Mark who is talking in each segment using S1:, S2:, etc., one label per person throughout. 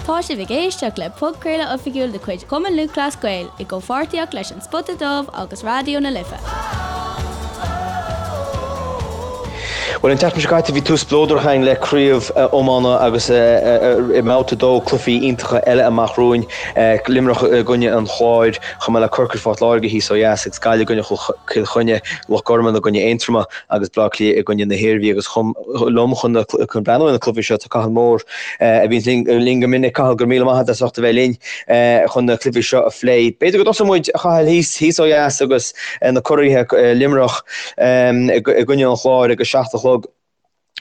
S1: Tá sibh ag éisteacht le podchraoladh oifigiúil de chuid Chumann Lúthchleas Gael i gcomhpháirtíocht leis An Spota Dubh agus Raidió na Life.
S2: Bhuel, an tseachtain seo caite bhí tús spleodrach againn le craobh iomána agus i mbabhta 2 cluichí iontacha eile amach romhainn, Luimneach i gcoinne an Chláir, chomh maith le Corcaigh Phort Láirge thíos ó dheas agus Gaillimh i gcoinne Chill Chainnigh, Loch Garman i gcoinne Aontroma agus Bleá Cliath i gcoinne na hIarmhí agus chomh liom chun chun breathnú ar na cluichí seo tá Cathal Moore a bhíonn linn go minic. Cathal, go raibh míle maith agat as ucht a bheith linn chun na cluichí seo a phlé. B'fhéidir go dtosóidh muid, a Chathail, thíos thíos ó dheas agus na curaithe Luimneach i gcoinne an Chláir ag a 7 a chlog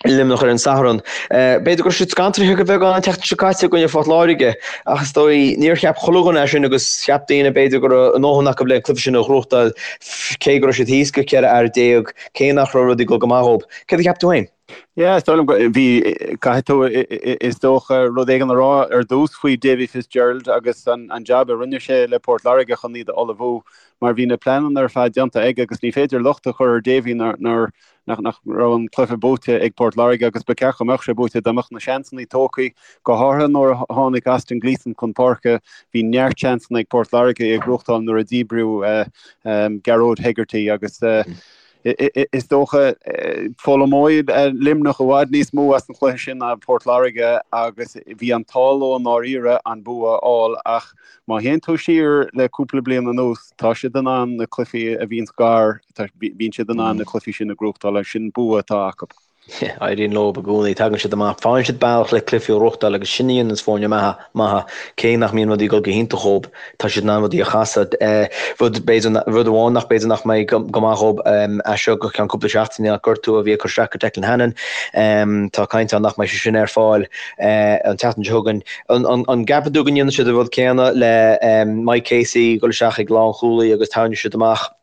S2: i Luimneach ar an Satharn. B'fhéidir go raibh siad scantraithe go beagán an tseachtain seo caite i gcoinne Phort Láirge ach is dóigh níor cheap chuile dhuine é sin agus cheap daoine b'fhéidir go raibh a ndóthain acu le an cluiche sin a ghnóthachtáil cé go raibh siad thíos go 14 fhear, cé nach raibh rudaí ag dul go maith dhóibh. Céard a cheap tú féin?
S3: Yeah, is dóigh liom go, bhí, caithfidh tú, is dócha, rud éigin a rá ar dtús faoi Davy Fitzgerald agus an jab a rinne sé le Port Láirge chun iad a ullmhú mar bhí na pleananna ar fad déanta aige agus ní féidir locht a chur ar Davy nár, nach, nach raibh an cluiche buaite ag Port Láirge agus ba cheart go mbeadh sé buaite dá mbeadh na seansanna tógtha, go háirithe nuair a tháinig Austin Gleeson chun páirce, bhí neart seansanna ag Port Láirge é a ghnóthachtáil nuair a díbríodh Gearóid Hegarty agus is dócha foghlaimeoidh Luimneach i bhfad níos mó as an chluiche sin ná Port Láirge agus bhí an t-ádh leo i ndáiríre an bua a fháil ach má théann tú siar le cúpla bliain anuas tá siad in ann na cluichí a bhíonns gar, bíonn siad in ann na cluichí sin a ghnóthachtáil agus sin bua atá acu.
S2: Éiríonn leo i gcónaí, tagann siad amach, faigheann siad bealach le cluichí a ghnóthachtáil agus sin a dhéananns foirne maithe, maithe, cé nach mbíonn rudaí ag dul go hiontach dhóib, tá siad in ann rudaí a chasadh. Rud, b'fhéidir, rud amháin nach b'fhéidir nach mbeidh go maith dhóib as seo go ceann cúpla seachtaine ná gortú a bhí ag cur isteach ar Declan Hannon. Tá caint ann nach mbeidh sé sin ar fáil an tseachtain seo chugainn. An gceapann tú go ndéanfaidh siad an rud céanna le Mike Casey dul isteach ag lánchúlaí agus tarraingeoidh siad amach?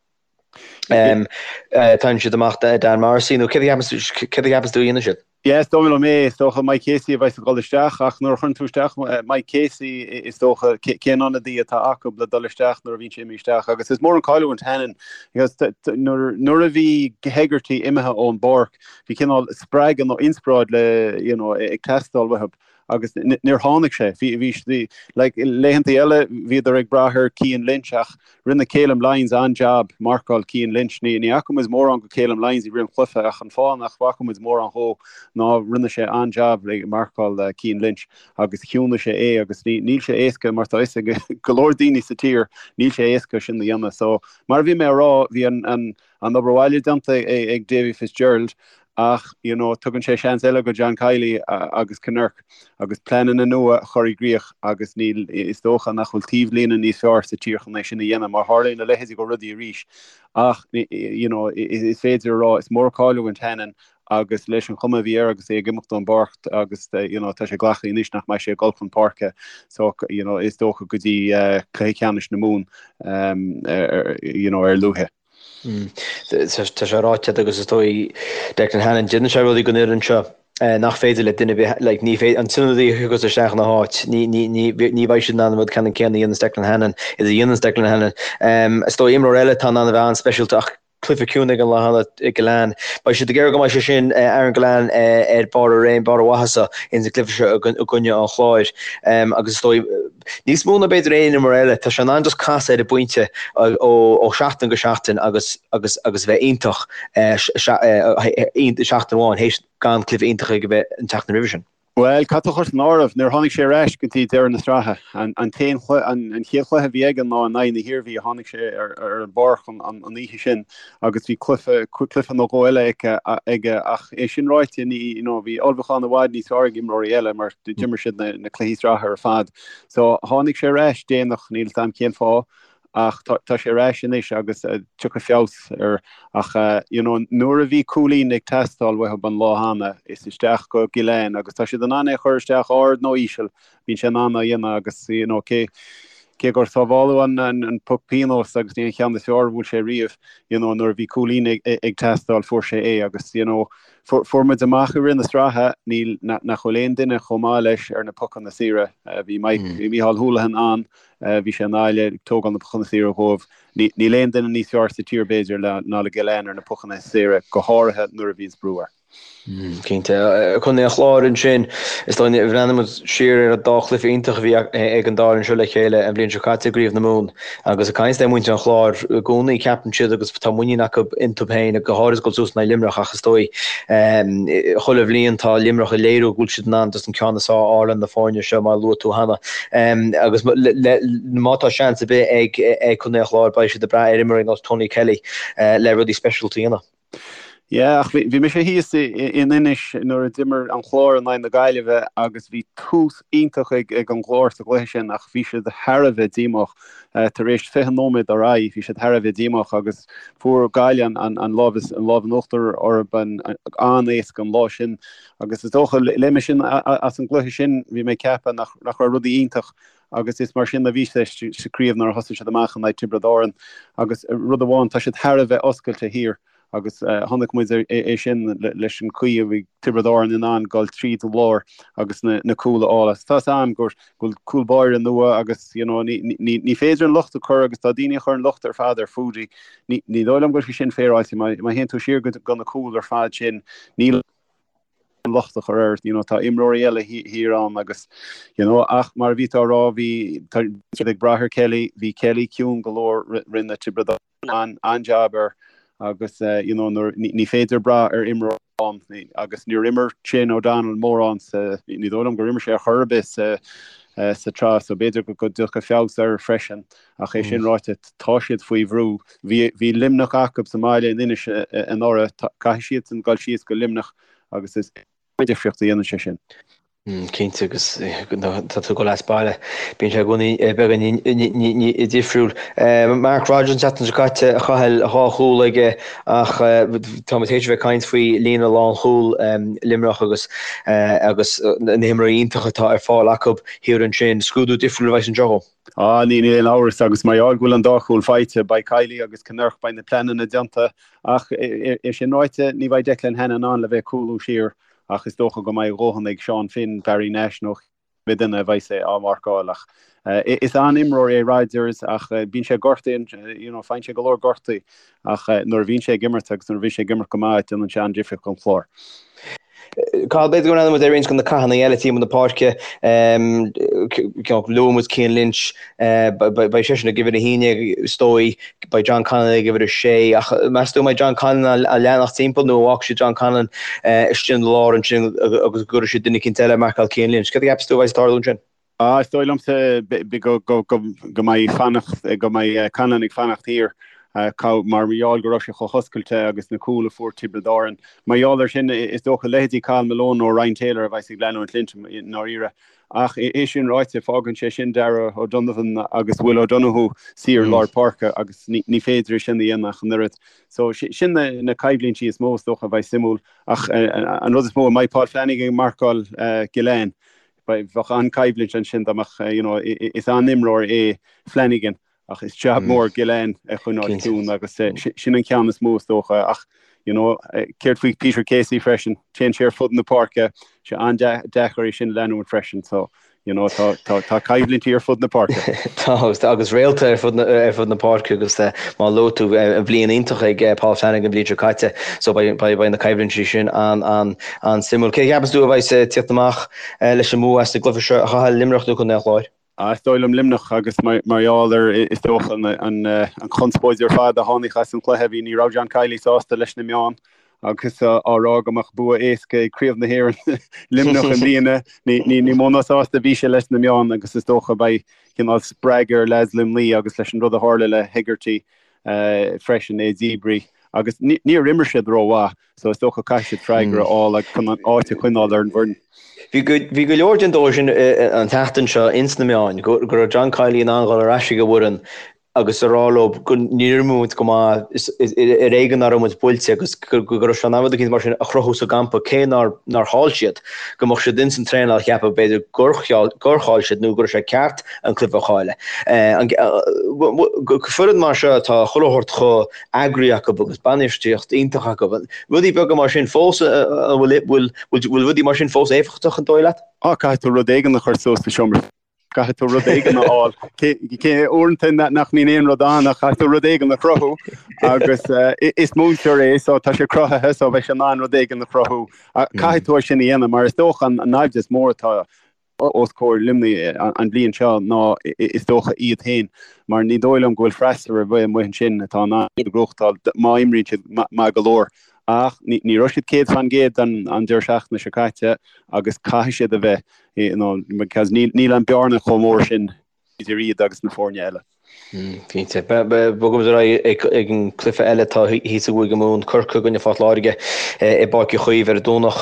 S2: Tarraingeoidh siad amach Dan Morrissey nó céard a cheapann tú a dhéanfaidh siad?
S3: Yeah, is dóigh liom é. Is dócha Mike Casey a bheas ag dul isteach ach nuair a chuireann tú isteach Mike Casey is dócha cén ionadaí atá acu le dul isteach nuair a bhíonn sé imithe isteach agus is mór an cailliúint Hannon because nuair a bhí Hegarty imithe ón bpáirc bhí cineál spreagadh nó inspioráid le you know ag teastáil uathu agus níor tháinig sé. Bhí bhí like laethanta eile bhíodar ag brath ar Cian Lynch ach Rinne Calum Lyons an-jab marcáil Cian Lynch. Ní fhaca muid mórán go Calum Lyons i rith an chluiche ach an fáth nach bhfaca muid mórán dhó ná rinne sé an-jab ag marcáil Cian Lynch agus chiúnaigh sé é agus níl sé éasca mar tá fhios ag go leor daoine sa tír níl sé éasca sin a dhéanamh. So mar a bhí mé a rá bhí an an obair bhaile déanta ag Davy Fitzgerald ach you know tugann sé seans eile go John Kiely agus Kinnerk agus pleananna nua a chur i gcrích agus níl, is dócha nach bhfuil taobhlíne níos fearr sa tír chun é sin a dhéanamh mar tharlaíonn a leithéidí go rudaí arís ach you know is féidir a rá is mór cailliúint Hannon agus leis an chuma a bhí air agus é ag imeacht ón bpáirc agus you know tá sé glactha anois nach mbeidh sé ag dul chun páirce so you know is dócha go dtí cluiche ceannais na Mumhan you know ar a luaithe.
S2: Tá sé ráite agat agus is dóigh Declan Hannon, déanann sé rudaí don fhoireann seo nach féidir le duine ar bith, like, ní féidir, an t-ionadaí a thiocfas isteach ina háit, ní, ní, ní, ní bheidh siad in ann an rud ceannann céanna a dhéananns Declan Hannon, is a dhéananns Declan Hannon. Is dóigh imreoir eile atá in ann a bheith an-speisialta ach cluiche ciúin ag an lá cheana, Gillane. Beidh siad ag iarraidh go mbeidh sé sin, Aaron Gillane, ar barr a réim, barr a mhaitheasa ins an gcluiche seo i gcoinne an Chláir. Agus is dóigh, níos mó ná b'fhéidir aon imreoir eile, tá sé in ann just casadh ar an bpointe ó sheachtain go seachtain agus agus agus bheith iontach seachtain amháin théis gan cluiche iontach aige bheith an tseachtain roimhe sin.
S3: Bhuel, caithfidh tú a chur san áireamh, níor tháinig sé ar ais go dtí deireadh na sraithe. An t-aon chluiche, an chéad chluiche a bhí aige ná in aghaidh na hIarmhí a tháinig sé ar an bpáirc an oíche sin agus bhí cluiche, cluiche nó dhó eile aige ach é sin ráite, ní, you know, bhí ullmhúchán i bhfad níos fearr ag imreoirí eile mar d'imir siad na cluichí sraithe ar fad. So, tháinig sé ar ais déanach, níl 'fhios a'm cén fáth. ach tá sé ar ais anois agus tiocfaidh feabhas air ach you know nuair a bhí cúilín ag teastáil uathub an lá cheana is isteach go Gillane agus tá siad in ann é a chur isteach ard nó íseal bíonn sé in ann á dhéanamh agus you know cé cé gur sábháladh an an an poc pionóis agus ní an cheann is fearr a bhuail sé riamh you know nuair a bhí cúilín ag ag teastáil fuair sé é agus you know fuair muid amach i rith na sraithe níl nach bhfuil aon duine chomh maith leis ar na pocanna saora bhí Mike bhí Micheál Houlihan ann Bhí sé i nGaillimh ag tógáil na pocanna saora dhóibh. Níl aon duine níos fearr sa tír b'fhéidir ná le Gillane ar na pocanna saora, go háirithe nuair a bhíonns brú air.
S2: Cinnte. Contae an Chláir ansin, is dóigh, bhreathnaigh muid siar ar an dá chluiche iontach a bhí ag an dá fhoireann seo le chéile an bhliain seo caite i gCraobh na Mumhan. Agus ag caint le muintir an Chláir i gcónaí, ceapann siad agus tá muinín acu iontu féin, go háirid ag dul suas in aghaidh Luimneach ach is dóigh chuile bhliain tá Luimneach ag léiriú go bhfuil siad in ann just an ceann is fearr a fháil ar na foirne seo mar a luaigh tú cheana. Agus má tá seans ar bith ag Contae an Chláir beidh siad ag brath ar imreoirí ar nós Tony Kelly le rudaí speisialta a dhéanamh.
S3: Yeah, ach bhí mise thíos in Inis nuair a d'imir an Clár in aghaidh na Gaillimhe agus bhí tús iontach ag an gClár sa gcluiche sin ach bhí siad thar a bheith díomách. Tar éis 20 nóiméad ar aghaidh bhí siad thar a bheith díomách agus fuair Gaillimh an lámh in uachtar orthu an-éasca an lá sin agus is dócha léigh mé sin as an gcluiche sin bhí mé ag ceapadh nach raibh rudaí iontach agus is mar sin a bhí sé sa craobh nuair a thosaigh siad amach in aghaidh Tiobraid Árann agus rud amháin tá siad thar a bheith oscailte thiar agus chonaic muid é sin leis an chaoi a bhí Tiobraid Árann in ann dul tríd an lár agus na cúil a fháil agus tá 'fhios a'm go bhfuil cúl báire nua agus you know ní ní féidir an locht a chur agus tá daoine a chur an locht ar fad ar Foudy ní ní dóigh liom go bhfuil sé sin féaráilte má théann tú siar go na cúil ar fad sin níl an locht a chur air, you know, tá imreoirí eile thiar ann agus, you know, ach mar a bhí tú á rá, bhí, tá siad ag brath ar Kelly, bhí Kelly ciúin go leor, rinne Tiobraid Árann an-jab air agus, you know, nuair, ní féidir brath ar imreoir amháin agus níor imir Shane O'Donnell mórán sa, ní dóigh liom gur imir sé ar chor ar bith sa, sa tsraith so b'fhéidir go dtiocfaidh feabhas air freisin ach é sin ráite tá siad faoi bhrú. Bhí, bhí Luimneach acu sa mbaile in Inis anuraidh, caithfidh siadsan dul síos go Luimneach agus is difríocht a dhéanann sé sin.
S2: Cinnte agus tá tú ag dul as baile, bíonn sé i gcónaí beagán difriúil. Mark Rodgers an tseachtain seo caite a Chathail dhá chúl aige ach tá muid théis a bheith ag caint faoi líne lánchúil Luimneach agus agus na himreoirí iontacha atá ar fáil acu thiar ansin. Scrúdú difriúil a bheas anseo dhó.
S3: Ah, níl aon amhras agus mar gheall go bhfuil an dá chúl faighte, beidh Kiely agus Kinnerk, beidh na pleananna déanta ach é sin ráite, ní bheidh Declan Hannon in ann le bheith ag cúlú siar ach is dócha go mbeidh a dhóthain ag Seán Finn, Barry Nash nó cibé duine a bheidh sé á mharcáil ach is an-imreoir é Rodgers ach bíonn sé gortaithe, you know, faigheann sé go leor gortaí ach nuair a bhíonn sé ag imirt agus nuair a bhíonn sé ag imirt go maith déanann sé an-difríocht don Chlár.
S2: Cathal, b'fhéidir go mbreathnóidh muid ar roinnt de na cathanna eile timpeall na páirce. Luaigh muid Cian Lynch, beidh seisean ag uimhir a haon is dóigh, beidh John Conlon ag uimhir a sé. Ach meas tú an mbeidh John Conlon á leanacht timpeall nó an bhfágfaidh siad John Conlon istigh ina lár ansin agus go gcuirfidh siad duine eicínt eile ag marcáil Cian Lynch? Céard a cheapas tú a bheidh ag tarlú ansin?
S3: Ah, is dóigh liomsa go mbeidh fanacht, go mbeidh Conlon ag fanacht thiar mar gheall go raibh sé chomh hoscailte agus na cúil a fuair Tiobraid Árann. Mar gheall air sin, is dócha leithéidí Cathal Malone nó Ryan Taylor a bheas ag leanúint Lynch i ndáiríre. Ach é sin ráite, fágann sé sin Darragh O'Donovan agus Will O'Donoghue saor i lár páirce agus ní féidir é sin a dhéanamh ach an oiread. So sin na coimhlintí is mó is dócha a bheidh suimiúil. Ach an rud is mó, an mbeidh Paul Flanagan ag marcáil Gillane? Bheadh an-choimhlint ansin dá mbeadh, you know, is an-imreoir é Flanagan ach is jab mór Gillane a choinneáil ciúin agus sin an ceann is mó is dócha ach, you know, céard faoi Peter Casey freisin, téann sé ar fud na páirce, sé an-deacair é sin a leanúint freisin so, you know, tá, tá, tá coimhlintí ar fud na páirce.
S2: Tá agus, agus réalta ar fud na, ar fud na páirce agus mar a luaigh tú, bhliain iontach ag Paul Flanagan an bhliain seo caite so beidh, beidh, beidh na coimhlintí sin an, an, an-suimiúil. Cé a cheapas tú a bheidh ag tíocht amach leis an mbua as an gcluiche seo a Chathail, Luimneach nó Contae an Chláir?
S3: Is dóigh liom Luimneach agus mar gheall ar, is dócha, an chonspóid ar fad a tháinig as an chluiche, bhí, ní raibh John Kiely sásta leis na meáin agus á rá go mbeadh bua éasca ag Craobh na hÉireann Luimneach i mbliana. Ní mó ná sásta a bhí sé leis na meáin agus is dócha beidh cineál spreagadh ar leaids Luimnigh agus leis an rud a tharla le Hegarty freisin, é díbrithe agus níor imir siad rómhaith. So is dócha caithfidh siad freagra a fháil agus chun an áit a choinneáil ar an bhfoireann.
S2: Bhí go bhí go leor den dóigh sin an tseachtain seo ins na meáin, go go raibh John Kiely in ann dhul ar ais ag an bhfoireann agus a rá leo go níor imir muid go maith, is ar éigean nach raibh muid buailte agus go go raibh sé in ann rud eicínt mar sin a chruthú sa gcampa cé nár nár chaill siad, go mbeadh siad ins an traenáil a cheapadh b'fhéidir gur gur chaill siad nó go raibh sé ceart an cluiche a chailleadh. An foireann mar seo atá chuile shórt chomh eagraithe acu agus bainistíocht iontach acu. Rudaí beaga mar sin fós, an bhfuil, bhfuil, bhfuil rudaí mar sin fós éifeachtach an dóigh leat?
S3: Á, caithfidh tú rud éigin a chur suas sa seomra. Caithfidh tú rud éigin a fháil. Cé uaireanta nach mbíonn aon rud ann ach caithfidh tú rud éigin a chruthú agus is múinteoir é so tá sé cruthaithe so beidh sé in ann rud éigin a chruthú. Caithfidh tú é sin a dhéanamh mar is dócha an naimhdeas is mó atá os comhair Luimnigh an bhliain seo ná is dócha iad féin mar ní dóigh liom go bhfuil freasúra ar bith amuigh ansin atá in ann iad a ghnóthachtáil má imríonn siad maith go leor. Ach ní raibh siad 100% an deireadh seachtaine seo caite agus caithfidh siad a bheith you know, because níl an bearna chomh mór sin idir iad agus na foirne eile.
S2: Cinnte. Bogaimis ar aghaidh ag an cluiche eile atá thíos i gCúige Mumhan, Corcaigh i gcoinne Phort Láirge i bPáirc Uí Chaoimh ar an Domhnach.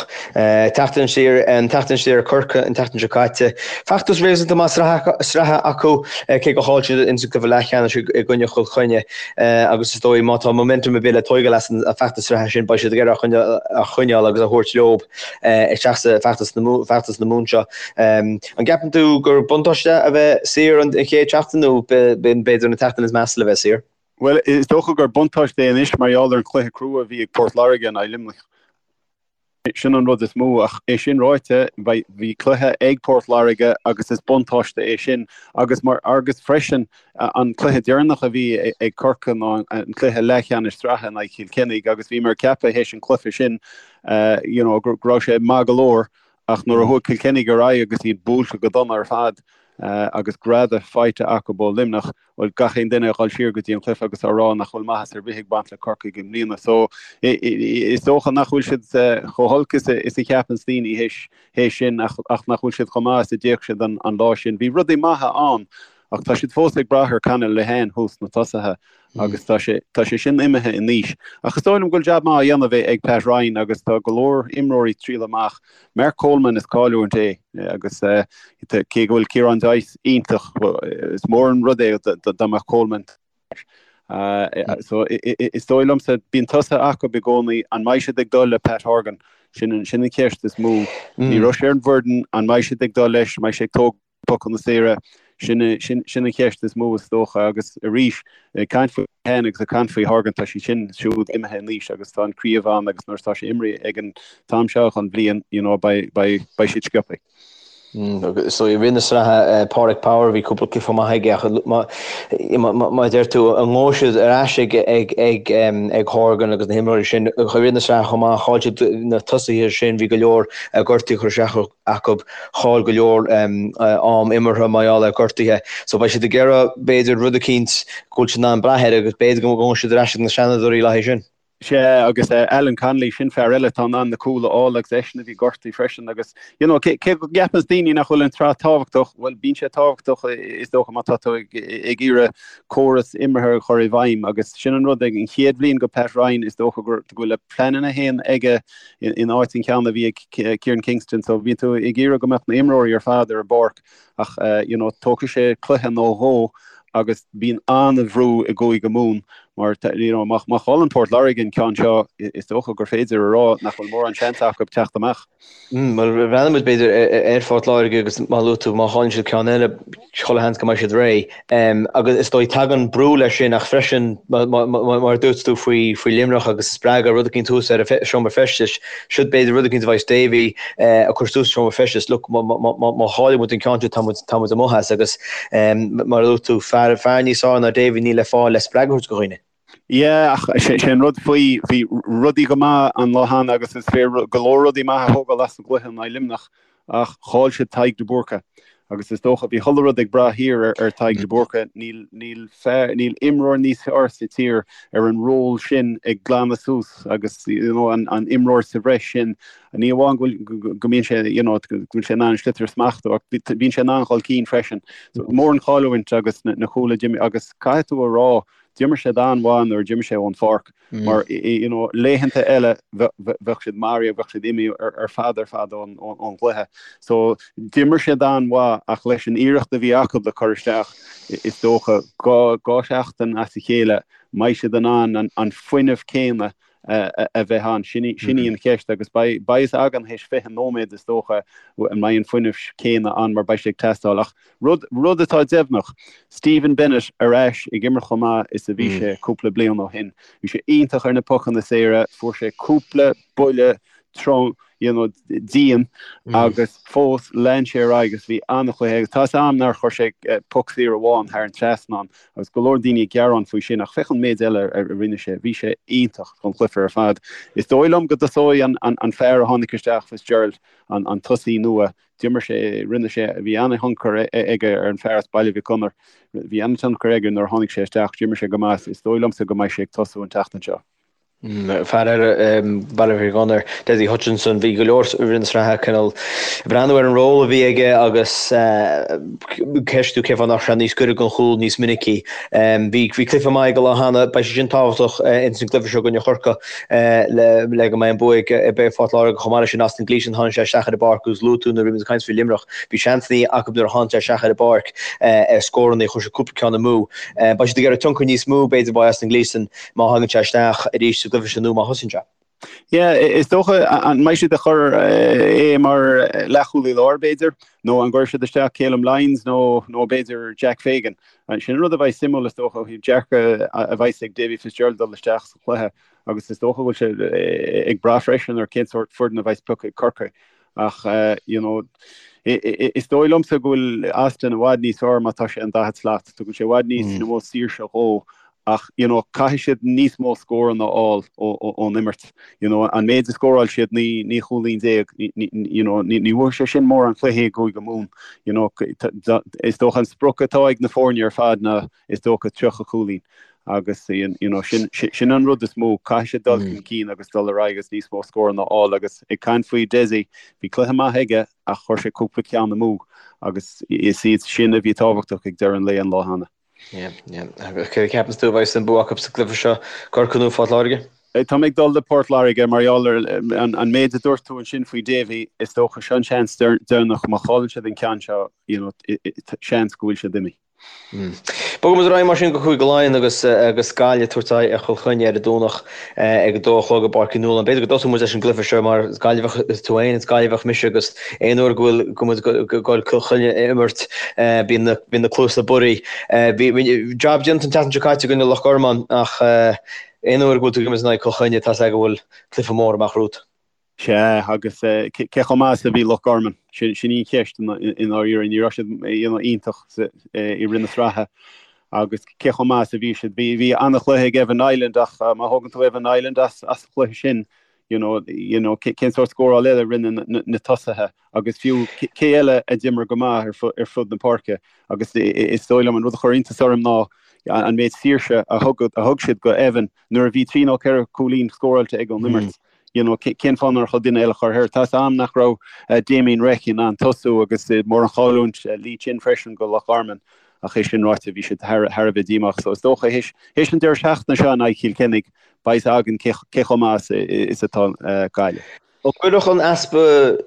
S2: Teacht aniar, an teacht aniar ar Corcaigh an tseachtain seo caite. Feachtas réasúnta maith sraithe acu cé gur chaill siad ins an cluiche leathcheannais i gcoinne Chill Chainnigh agus is dóigh má tá momentum ar bith le tóigeáil as an feachtas sraithe sin beidh siad ag iarraidh a choinneáil agus a thabhairt leo. isteach sa feachtas na Mumhan seo. An gceapann tú gur buntáiste a bheith saor an chéad tseachtain nó b'fhéidir an tseachtain is measa le bheith saor?
S3: Bhuel, is dócha gur buntáiste é anois mar gheall ar an chluiche crua a bhí ag Port Láirge in aghaidh Luimnigh. Sin an rud is mó, ach é sin ráite, bhí cluiche ag Port Láirge agus is buntáiste é sin agus mar agus freisin An cluiche deireanach a bhí ag Corcaigh ná an cluiche leathcheannais sraithe in aghaidh Chill Chainnigh agus bhíomar ag ceapadh théis an cluiche sin you know go raibh sé maith go leor ach nuair a chuaigh Cill Chainnigh ar aghaidh agus iad buailte go dona ar fad agus greadadh faighte acu ó Luimneach, bhuel gach aon duine ag dul siar go dtí an cluiche agus á rá nach bhfuil maitheas ar bith ag baint le Corcaigh i mbliana. So is dócha nach bhfuil siad chomh holc is a cheapanns daoine théis sin ach nach bhfuil siad chomh maith is a d'fhéach siad an lá sin. Bhí rudaí maithe ann Ach tá siad fós ag brath ar Conor Lehane thuas sna tosaithe agus tá sé tá sé sin imithe in aois. Ach is dóigh liom go bhfuil jab maith á dhéanamh ag Pat Ryan agus tá go leor imreoirí trialtha amach. Mark Coleman is cailliúint é agus cé go bhfuil Ciarán Joyce iontach, is mór an rud é dá mbeadh Coleman So is dóigh liomsa bíonn tosaithe acu i gcónaí, an mbeidh siad ag dul le Pat Horgan? Sin an cheist is mó. Ní raibh sé ar an bhfoireann, an mbeidh siad ag dul leis, an mbeidh sé ag tógáil pocanna saora, sin sin an cheist is mó is dócha agus arís ag caint faoi Lehane agus ag caint faoi Horgan tá siad sin siúd imithe in aois agus tá an craobh ann agus nuair atá sé imrithe ag an t-am seo den bhliain you know beidh beidh beidh siad sciobtha.
S2: So i rith na sraithe Pádraig Power bhí cúpla cluiche maith aige ach mar a deir tú an ngabhfaidh siad ar ais ag ag ag ag Horgan agus na himreoirí sin i rith na sraithe chomh maith chaill siad na tosaithe sin bhí go leor gortuithe curtha isteach acu, chaill go leor am imeartha mar gheall ar ghortuithe. So beidh siad ag iarraidh, b'fhéidir, rud eicínt go bhfuil siad in ann brath air agus b'fhéidir go ngabhfaidh siad ar ais ag na seanadóirí le haghaidh sin.
S3: Sea, agus Alan Connolly, sin fear eile atá in ann na cúil a fháil agus eisean a bhí gortaithe freisin agus, you know, cé go gceapanns daoine nach bhfuil an tsraith tábhachtach, bhuel, bíonn sé tábhachtach is dócha má tá tú ag iarraidh córas imeartha a chur i bhfeidhm agus sin an rud ag an chéad bhliain go Pat Ryan is dócha go bhfuil a pleananna féin aige in áit an ceann a bhí ag Kieran Kingston so bíonn tú ag iarraidh go mbeadh na imreoirí ar fad ar an bpáirc ach you know tógfaidh sé cluiche nó dhó agus bíonn an-bhrú i gCúige Mumhan mar you know má chailleann Port Láirge an ceann seo is dócha gur féidir a rá nach bhfuil mórán seans acu teacht amach.
S2: Bhuel breathnóidh muid b'fhéidir ar Phort Láirge agus mar a luaigh tú má chailleann siad ceann eile chuile sheans go mbeidh siad réidh. Agus is dóigh tagann brú leis sin ach freisin mar a dúirt tú faoi faoi Luimneach agus spreagadh rud eicínt thuas ar an seomra feistis, siod b'fhéidir rud eicínt a bheidh Davy ag cur suas sa seomra feistis, look má chailleann muid an ceann seo tá muid tá muid amuigh as agus mar a dúirt tú fear fear níos fearr ná Davy níl le fáil le spreagadh a thabhairt do dhaoine.
S3: Yeah, ach sé an rud faoi, bhí rudaí go maith an lá cheana agus is féidir go leor rudaí maithe a thógáil as an gcluiche in aghaidh Luimneach ach chaill siad Tadhg de Búrca agus is dócha bhí chuile rud ag brath thiar ar Tadhg de Búrca. Níl, níl fear, níl imreoir níos fearr sa tír ar an ról sin ag glanadh suas agus you know an, an imreoir sa bhreis sin. Ní amháin go bhfuil, go mbíonn sé you know go bhfuil sé in ann an sliotar a smachtú ach bíonn sé in ann dhul cinn freisin. So mór an chailliúint agus na, na cúil a d'imigh agus caithfidh tú a rá D'imir siad an-mhaith nuair a d'imigh sé ón pháirc mar you know laethanta eile bheadh siad maraithe, bheadh siad imithe ar fad ar fad ón gcluiche. So d'imir siad an-mhaith ach leis an iarracht a bhí acu le cur isteach is dócha dhá sheachtain as a chéile mbeidh siad in ann an fuinneamh céanna a bheith ann. Sin í an cheist agus beidh a fhios againn théis 20 nóiméad is dócha an mbeidh an fuinneamh céanna ann mar beidh sé ag teastáil. Ach rud, rud atá deimhneach, Stephen Bennett ar ais ag imirt chomh maith is a bhí sé cúpla bliain ó shin. Bhí sé iontach ar na pocanna saora, fuair sé cúpla buille trom. you know, dian agus fós lean sé ar aghaidh agus bhí an-chluiche agus tá 'fhios a'm nár chuir sé poc saor amháin thar an trasnán agus go leor daoine ag gearán faoi sin ach féach an méid eile a rinne sé, bhí sé iontach don chluiche ar fad. Is dóigh liom go dtosóidh an fear a tháinig isteach, Fitzgerald, an tosaí nua, d'imir sé, rinne sé, bhí an-thionchar aige ar an fear as Baile Mhic Gonair, bhí an-tionchar aige nuair a tháinig sé isteach, d'imir sé go maith, is dóigh liomsa go mbeidh sé ag tosú an tseachtain seo.
S2: Fear eile Baile Mhic Gonair, Dessie Hutchinson, bhí go leor i rith na sraithe cineál ag breathnú ar an ról a bhí aige agus ceistiú cén fáth nach raibh sé níos gaire don chúl níos minicí. Bhí cluiche maith aige an lá cheana, beidh sé sin tábhachtach ins an gcluiche seo i gcoinne Chorcaí le go mbeidh an bua ag Phort Láirge. Chomh maith leis sin Austin Gleeson, tháinig sé isteach ar an bpáirc agus luaigh tú nuair a bhí muid ag caint faoi Luimneach, bhí seansanna acu nuair a tháinig sé isteach ar an bpáirc ar scóranna, chuir sé cúpla ceann amú. Beidh siad ag iarraidh tionchar níos mó b'fhéidir ó Austin Gleeson má thagann sé isteach arís sa gcluiche seo nó má thosaíonn sé.
S3: Yeah, is dócha an mbeidh siad ag cur é mar leathchúlaí láir b'fhéidir, nó an gcuirfidh siad isteach Calum Lyons nó nó b'fhéidir Jack Fagan. Sin an rud a bheidh suimiúil is dócha ó thaobh dearcadh a bheidh ag Davy Fitzgerald dul isteach sa chluiche agus is dócha go bhfuil sé ag brath freisin ar cén sórt foireann a bheidh pioctha ag Corcaigh. Ach you know is dóigh liomsa go bhfuil Austin i bhfad níos fearr má tá sé an daichead slat. Tugann sé i bhfad níos mó saoirse dhó ach you know caithfidh siad níos mó scóranna a fháil ón imirt. You know an méid a scóráil siad 19 chúilín you know ní bhuafaidh sé sin mórán cluichí i gCúige Mumhan. You know is dócha an sprioc atá ag na foirne ar fad ná is dócha 30 cúilín agus you know sin sin an rud is mó, caithfidh siad dul chun cinn agus dul ar aghaidh agus níos mó scóranna a fháil agus ag caint faoi Dessie, bhí cluiche maith aige ach chuir sé cúpla ceann amú agus is iad sin a bhí tábhachtach ag deireadh an lae an lá cheana.
S2: Yeah, yeah. Cé a cheapanns tú a bheidh an bua acu sa gcluiche seo, Corcaigh nó Phort Láirge?
S3: Tá mé ag dul le Port Láirge mar gheall ar an méid a dúirt tú ansin faoi Davy, is dócha seo an seans deireanach, má chailleann siad an ceann seo, you know, seans go bhfuil siad imithe.
S2: Bogfaidh muid ar aghaidh mar sin go Cúige Laighean agus agus Gaillimh ag tabhairt aghaidh ar Chill Chainnigh ar an Domhnach ag a dó a chlog i bPáirc Uí Nualláin. B'fhéidir go dtosóidh muid leis an gcluiche seo mar is Gaillimheach tú féin, is Gaillimheach mise agus aon uair go bhfuil go muid ag goil Cill Chainnigh a imirt bíonn na bíonn na cluasa bodhraithe. Bhí jab déanta an tseachtain seo caite i gcoinne Loch Garman ach aon uair go bhfuil tú ag imirt in aghaidh Cill Chainnigh tá's agat go bhfuil cluiche mór amach romhat.
S3: Sea, agus cé chomh maith is a bhí Loch Garman? Sin í an cheist i ndáiríre. Ní raibh siad iontach i rith na sraithe agus cé chomh maith is a bhí siad? Bhí an-chluiche ag Evan Niland ach má thógann tú Evan Niland as an chluiche sin, you know, you know, cén sórt scóráil eile a rinne na tosaithe agus fiú cé eile a d'imir go maith ar fud na páirce agus is dóigh liom an rud a chuir iontas orm ná an méid saoirse a thug siad go Evan nuair a bhí trí nó ceithre chúilín scóráilte ag an imirt. You know, cén fáth nár chóir duine eile a chur air? Tá's a'm nach raibh Damien Reck in ann tosú agus mór an chailliúint Lee Chin freisin go Loch Garman ach é sin ráite bhí siad thar a bheith díomách. So is dócha théis an deireadh seachtaine seo in aghaidh Chill Chainnigh beidh 'fhios againn cé chomh maith is atá Gaillimh.
S2: An gcuirfeadh an easpa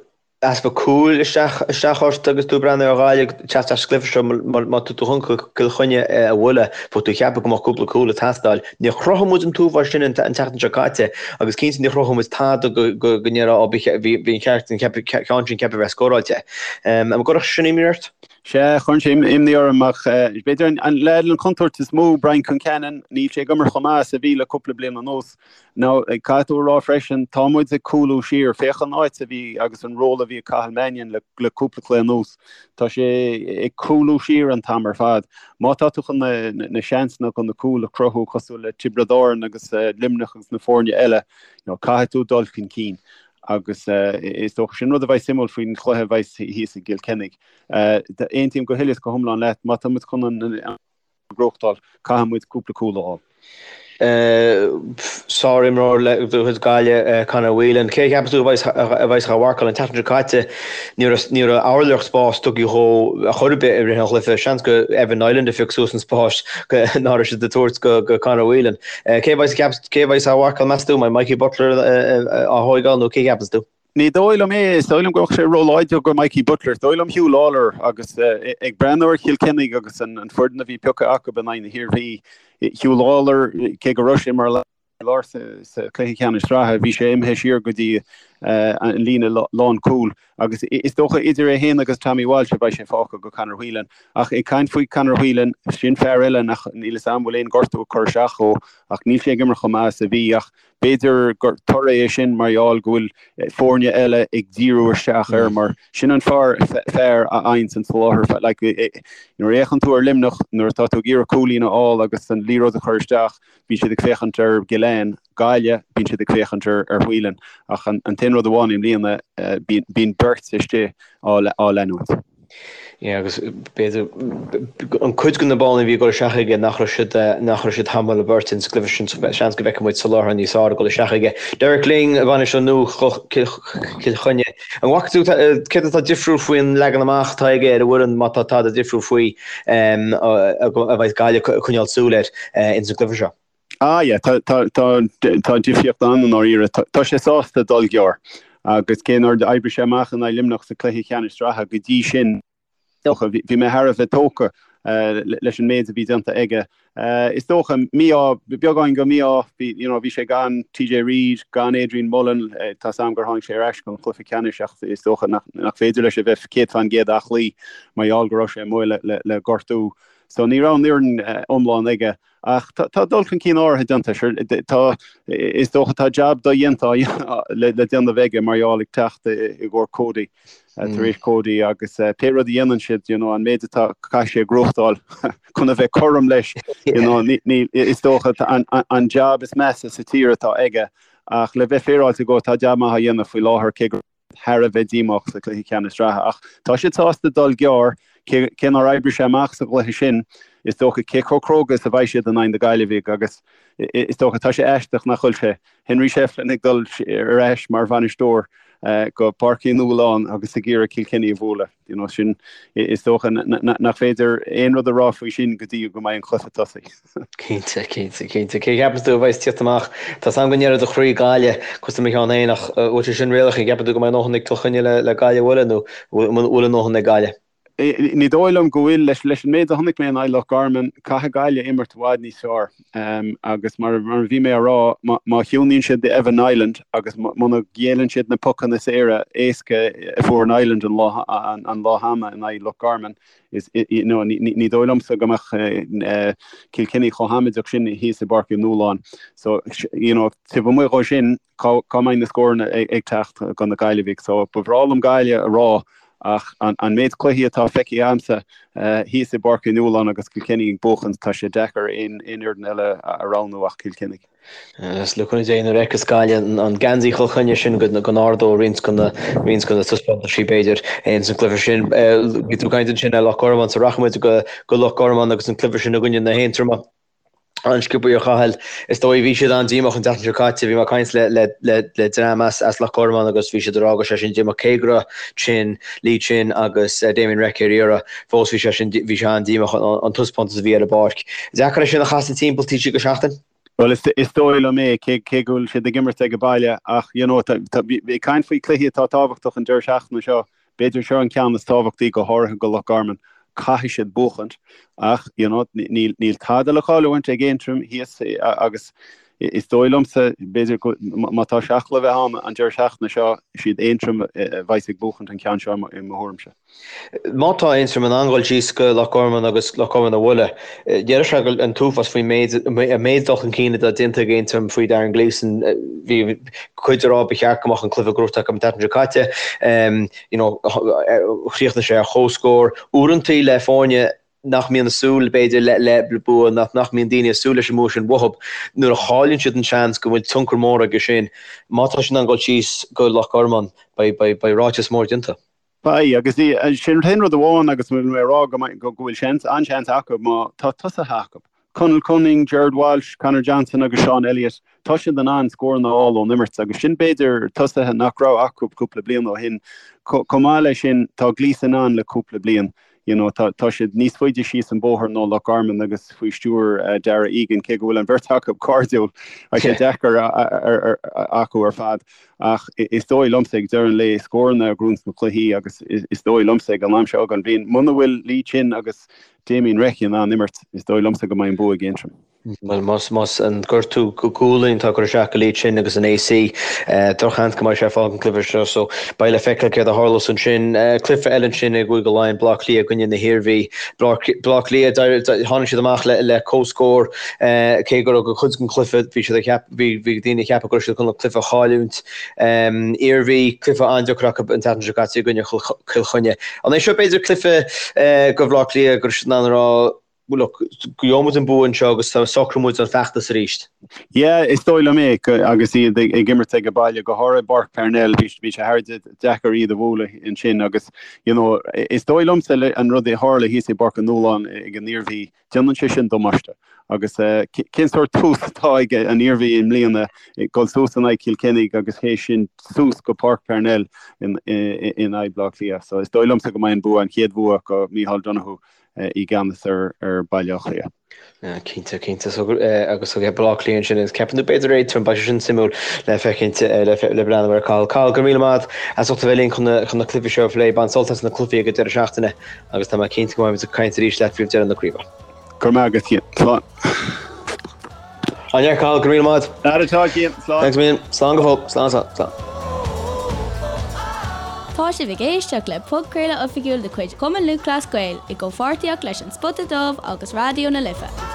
S2: easpa cúil isteach isteach ort agus tú ag breathnú ar Ghaillimh ag teacht as an gcluiche seo má tá tú chun Cill Chainnigh a bhualadh bheadh tú ag ceapadh go mbeadh cúpla cúl ag teastáil. Níor chruthaigh muid an t-uafás sin an tseachtain seo caite agus cinnte níor chruthaigh muid tada go go ndéarfá ó bhí bhí an ceart an ceann sin ceaptha a bheith scóráilte. An gcuirfeadh sin imní ort?
S3: Sea, chuireann sé imní orm ach b'fhéidir an leaid an chontúirt is mó, Brian Concannon, níl sé ag imirt chomh maith is a bhí le cúpla bliain anuas. Now, caithfidh tú a rá freisin, tá muid ag cúlú siar. Féach an áit a bhí agus an ról a bhí ag Cathal Mannion le le cúpla cluiche anuas. Tá sé ag cúlú siar an t-am ar fad. Má tá tú chun na na seansanna chun na cúil a chruthú cosúil le Tiobraid Árann agus Luimneach agus na foirne eile, you know, caithfidh tú dul chun cinn. Agus is dócha sin rud a bheidh suimiúil faoin chluiche a bheidh thíos i gCill Chainnigh. Aontaím go huile is go hiomlán leat, má tá muid chun an gnóthachtáil, caithfidh muid cúpla cúl a fháil.
S2: Sár-imreoir de chuid Gaillimh, Conor Whelan. Cé a cheapas tú a bheas á mharcáil an tseachtain seo caite? Ní raibh ní raibh ábhairleach spás tugtha dhó ar chor ar bith i rith an chluiche. Seans gur Evan Niland a phioc suas an spás ná raibh siad ag tabhairt go Conor Whelan. Cé a bheas cé a bheas á mharcáil meas tú? An mbeidh Mikey Butler á thóigeáil nó cé a cheapas tú?
S3: Ní dóigh liom é. Is dóigh liom go mbeadh sé róláidir go Mikey Butler. Is dóigh liom Huw Lawlor agus ag breathnú ar Chill Chainnigh agus an foireann a bhí pioctha acu in aghaidh na hIarmhí, Huw Lawlor, cé go raibh sé mar lár sa chluiche ceannais sraithe, bhí sé imithe siar go dtí an líne lánchúil agus is dócha idir é féin agus Tommy Walsh a bheidh sé fágtha go Conor Whelan. Ach ag caint faoi Conor Whelan, sin fear eile nach níl 'fhios a'm bhfuil aon gortú ag cur isteach dhó ach níl sé ag imirt chomh maith is a bhí ach B'fhéidir gur toradh é sin mar gheall go bhfuil foirne eile ag díriú isteach air mar sin an fear fear a fhaigheanns an soláthar. Like, nuair a fhéachann tú ar Luimneach, nuair atá tú ag iarraidh cúilín a fháil agus an liathróid a chur isteach, bíonn siad ag féachaint ar Gillane, Gaillimh, bíonn siad ag féachaint ar ar Whelan. Ach an an t-aon rud amháin i mbliana, bíonn beirt istigh á á leanúint.
S2: Yeah, agus b'fhéidir an cuid de na báillí a bhí ag dul isteach aige nach raibh siad nach raibh siad tamall a beirt ins an gcluiche sin seans go bhfeicfidh muid soláthar níos fearr ag dul isteach aige. Derek Lyng, bainisteoir nua Chill Chainnigh. An bhfaca tú céard atá difriúil faoin leagan amach atá aige ar an bhfoireann má tá tada difriúil faoi a bheidh Gaillimh ag coinneáil súil air ins an gcluiche seo?
S3: Ah yeah, tá tá tá tá difríocht ann i ndáiríre. Tá tá sé sásta dul gearr agus cé nár oibrigh sé amach in aghaidh Luimneach sa cluiche ceannais sraithe go dtí sin, dócha, bhí bhí mé thar a bheith tógtha leis an méid a bhí déanta aige. Is dócha mí-ádh, beagáin go mí-ádh, bhí you know bhí sé gan TJ Reid, gan Adrian Mullen, tá's a'm gur tháinig sé ar ais don chluiche ceannais ach is dócha nach nach féidir leis a bheith 100% aclaí mar gheall go raibh sé amuigh le le le gortú. So ní raibh an fhoireann iomlán aige. Ach tá dul chun cinn áirithe déanta. Sure, tá, is dócha tá jab dodhéanta le déanamh aige mar gheall ag teacht i gcomhair Cody, tar éis Cody agus pé rud a dhéanann siad, you know, an méid atá caithfidh sé a ghnóthachtáil chun a bheith cothrom leis, you know, ní, is dócha an jab is measa sa tír atá aige ach le bheith féaráilte dhó tá jab maith á dhéanamh faoi láthair cé go thar a bheith díomách sa chluiche ceannais sraithe ach tá siad sásta dul gearr, cé nár oibrigh sé amach sa gcluiche sin, is dócha cé chomh cróga is a bheidh siad in aghaidh na Gaillimhigh agus is dócha tá sé aisteach nach bhfuil sé Henry Shefflin ag dul ar ais mar bhainisteoir go Páirc Uí Nualláin agus ag iarraidh Kilkenny a bhualadh. You know, sin is dócha nach féidir aon rud a rá faoi sin go dtí go mbeidh an cluiche tosaithe.
S2: Cinnte, cinnte, cinnte. Cé a cheapanns tú a bheas ag tíocht amach? Tá's a'm go ndéarfaidh do chroí Gaillimh, cosúil le mo cheann féin, ach bhfuil sé sin réalaíoch? An gceapann tú go mbeidh a ndóthain ag Cill Chainnigh le Gaillimh a bhualadh nó bhfuil a ndóthain ag Gaillimh?
S3: Ní dóigh liom go bhfuil. Leis an méid a chonaic mé in aghaidh Loch Garman, caithfidh Gaillimh imirt i bhfad níos fearr. Agus mar a bhí mé a rá, má chiúnaíonn siad Evan Niland agus muna ghéilleann siad na pocanna saora éasca a fuair Niland an lá cheana in aghaidh Loch Garman, ní dóigh liomsa go mbeadh Kilkenny chomh hamaideach sin thíos i bPáirc Uí Nualláin. So, you know, taobh amuigh dhó sin, cá mbeidh na scóranna ag teacht do na Gaillimhigh? So, ba bhreá liom Gaillimh a rá ach an méid cluichí atá feicthe agamsa thíos i bPáirc Uí Nualláin agus Kilkenny ag buachan, tá sé deacair aon fhoireann eile a roghnú ach Cill Chainnigh.
S2: Is le cúnamh Dé nuair a fheicfeas Gaillimh an geansaí Chill Chainnigh sin go n-ardóidh roinnt de na roinnt de na taispeántaisí b'fhéidir ins an gcluiche sin. Bhí tú ag caint ansin ar Loch Garman so rachaidh muid go go Loch Garman agus an cluiche sin i gcoinne na hAontroma. An-sciobtha a Chathail. Is dóigh bhí siad an-díomách an tseachtain seo caite. Bhí mé ag caint le le le le dream as as Loch Garman agus bhí siad ag rá go raibh sé sin díomách cé go raibh Chin, Lee Chin agus Damien Reck ar iarraidh. Fós bhí sé sin bhí sé an-díomách an taispeántas a bhí ar an bpáirc. Deacair é sin a chasadh timpeall taobh istigh de sheachtain.
S3: Bhuel, is dóigh liom é, cé go bhfuil siad ag imirt ag baile, ach you know, ag caint faoi chluichí atá tábhachtach an deireadh seachtaine seo, b'fhéidir seo an ceann is tábhachtaí, go háirithe go Loch Garman. Caithfidh siad buachaint, ach you know, níl tada le cailliúint ag Aontroim thíos agus is dóigh liomsa, b'fhéidir, má tá seachla a bheith ann an deireadh seachtaine seo, siad Aontroim a bheas ag buachaint an ceann seo i mo thuairimse.
S2: Má tá Aontroim in ann dul síos go Loch Garman agus Loch Garman a bhualadh, déarfadh sé go an t-uafás faoin méid an méid dul chun cinn atá déanta ag Aontroim faoi Darren Gleeson. Bhí cuid ag rá ba cheart go mbeadh an cluiche gnóthaithe acu an tseachtain seo caite. You know, chríochnaigh sé ar comhscór. Uaireantaí le foirne nach mbíonn ag súil, b'fhéidir, le le bua, nach nach mbíonn daoine ag súil leis an mbua sin uathub, nuair a chailleann siad an seans go bhfuil tionchar mór aige sin. Má tá siad in ann dul síos go Loch Garman, beidh beidh beidh ráiteas mór déanta.
S3: Beidh, agus sin an t-aon rud amháin agus bhfuil mé ag rá go bhfuil seans, an-seans acu má tá tosaithe acu. Conal Cunning, Gerard Walsh, Conor Johnson agus Sean Elliott, tá siad in ann scóranna a fháil ón imirt agus sin b'fhéidir tosaithe nach raibh acu cúpla bliain ó shin. Chomh maith leis sin, tá Gleeson ann le cúpla bliain. You know, tá tá siad níos faide síos an bóthar ná Loch Garman agus faoi stiúir Darragh Egan, cé go bhfuil an bheirt acu cairdiúil, tá sé deacair acu ar fad. Ach is dóigh liomsa ag deireadh an lae, scóranna a ghnóthaíonns na cluichí agus is dóigh liomsa ag an am seo den bhliain, muna bhfuil Lee Chin agus Damien Reck in ann imirt, is dóigh liomsa go mbeidh an bua ag Aontroim.
S2: Bhuel, más, más an gortú gualainn atá ag cur isteach go Leitch sin agus an AC, drochsheans go mbeidh sé ag fágaint an cluiche seo, so beidh le feiceáil céard a tharlós ansin. Cluiche eile ansin i gCúige Laighean, Baile Átha Cliath i gcoinne na hIarmhí. Baile Átha Cliath, tháinig siad amach le, le comhscór, cé go raibh go cuid den chluiche, bhí siad ag ceap, bhí, bhí daoine ag ceapadh go raibh siad chun an cluiche a chailliúint. Iarmhí, cluiche an-deacair acu an tseachtain seo caite i gcoinne Chill Chainnigh. An é seo b'fhéidir cluiche do Bhaile Átha Cliath go raibh siad in ann a rá, Look, gheobhaidh muid an bua anseo agus socróidh muid an feachtas arís.
S3: Yeah, is dóigh liom é, agus iad ag imirt ag baile, go háirithe i bPáirc Parnell, bhí sé thar deacair iad a bhualadh ansin agus, you know, is dóigh liomsa an rud a tharla thíos i bPáirc an Nualláin ag an Iarmhí, déanann sé sin damáiste. Agus cén sórt tús atá ag an Iarmhí i mbliana, dul suas in aghaidh Chill Chainnigh agus théis sin suas go Páirc Parnell in aghaidh Bleá Cliath. So is dóigh liomsa go mbeidh an bua, an chéad bhua do Micheál Donoghue i gceannas ar Bhaile Átha Cliath.
S2: Cinnte, cinnte. So, agus so Baile Átha Cliath ansin, agus ceapann tú b'fhéidir Aontroim, beidh sé sin suimiúil le feicint, le breathnú air. Cathal, Cathal, go raibh míle maith agat as ucht a bheith linn chun na, chun na cluichí seo a phlé. Bain sult as na cluichí ag an deireadh seachtaine agus tá mé cinnte go mbeidh muid ag caint arís leat roimh deireadh na craoibhe.
S3: Go raibh maith agat, Cian. Slán.
S2: An-fhear, Cathal, go raibh míle maith
S3: agat. Aire tá, Cian.
S2: Slán. Thanks a million. Slán go fóill. Slán, slán, slán.
S1: Tá sibh ag éisteacht le podchraoladh oifigiúil de chuid Chumann Lúthchleas Gael i gcomhpháirtíocht leis An Spota Dubh agus Raidió na Life.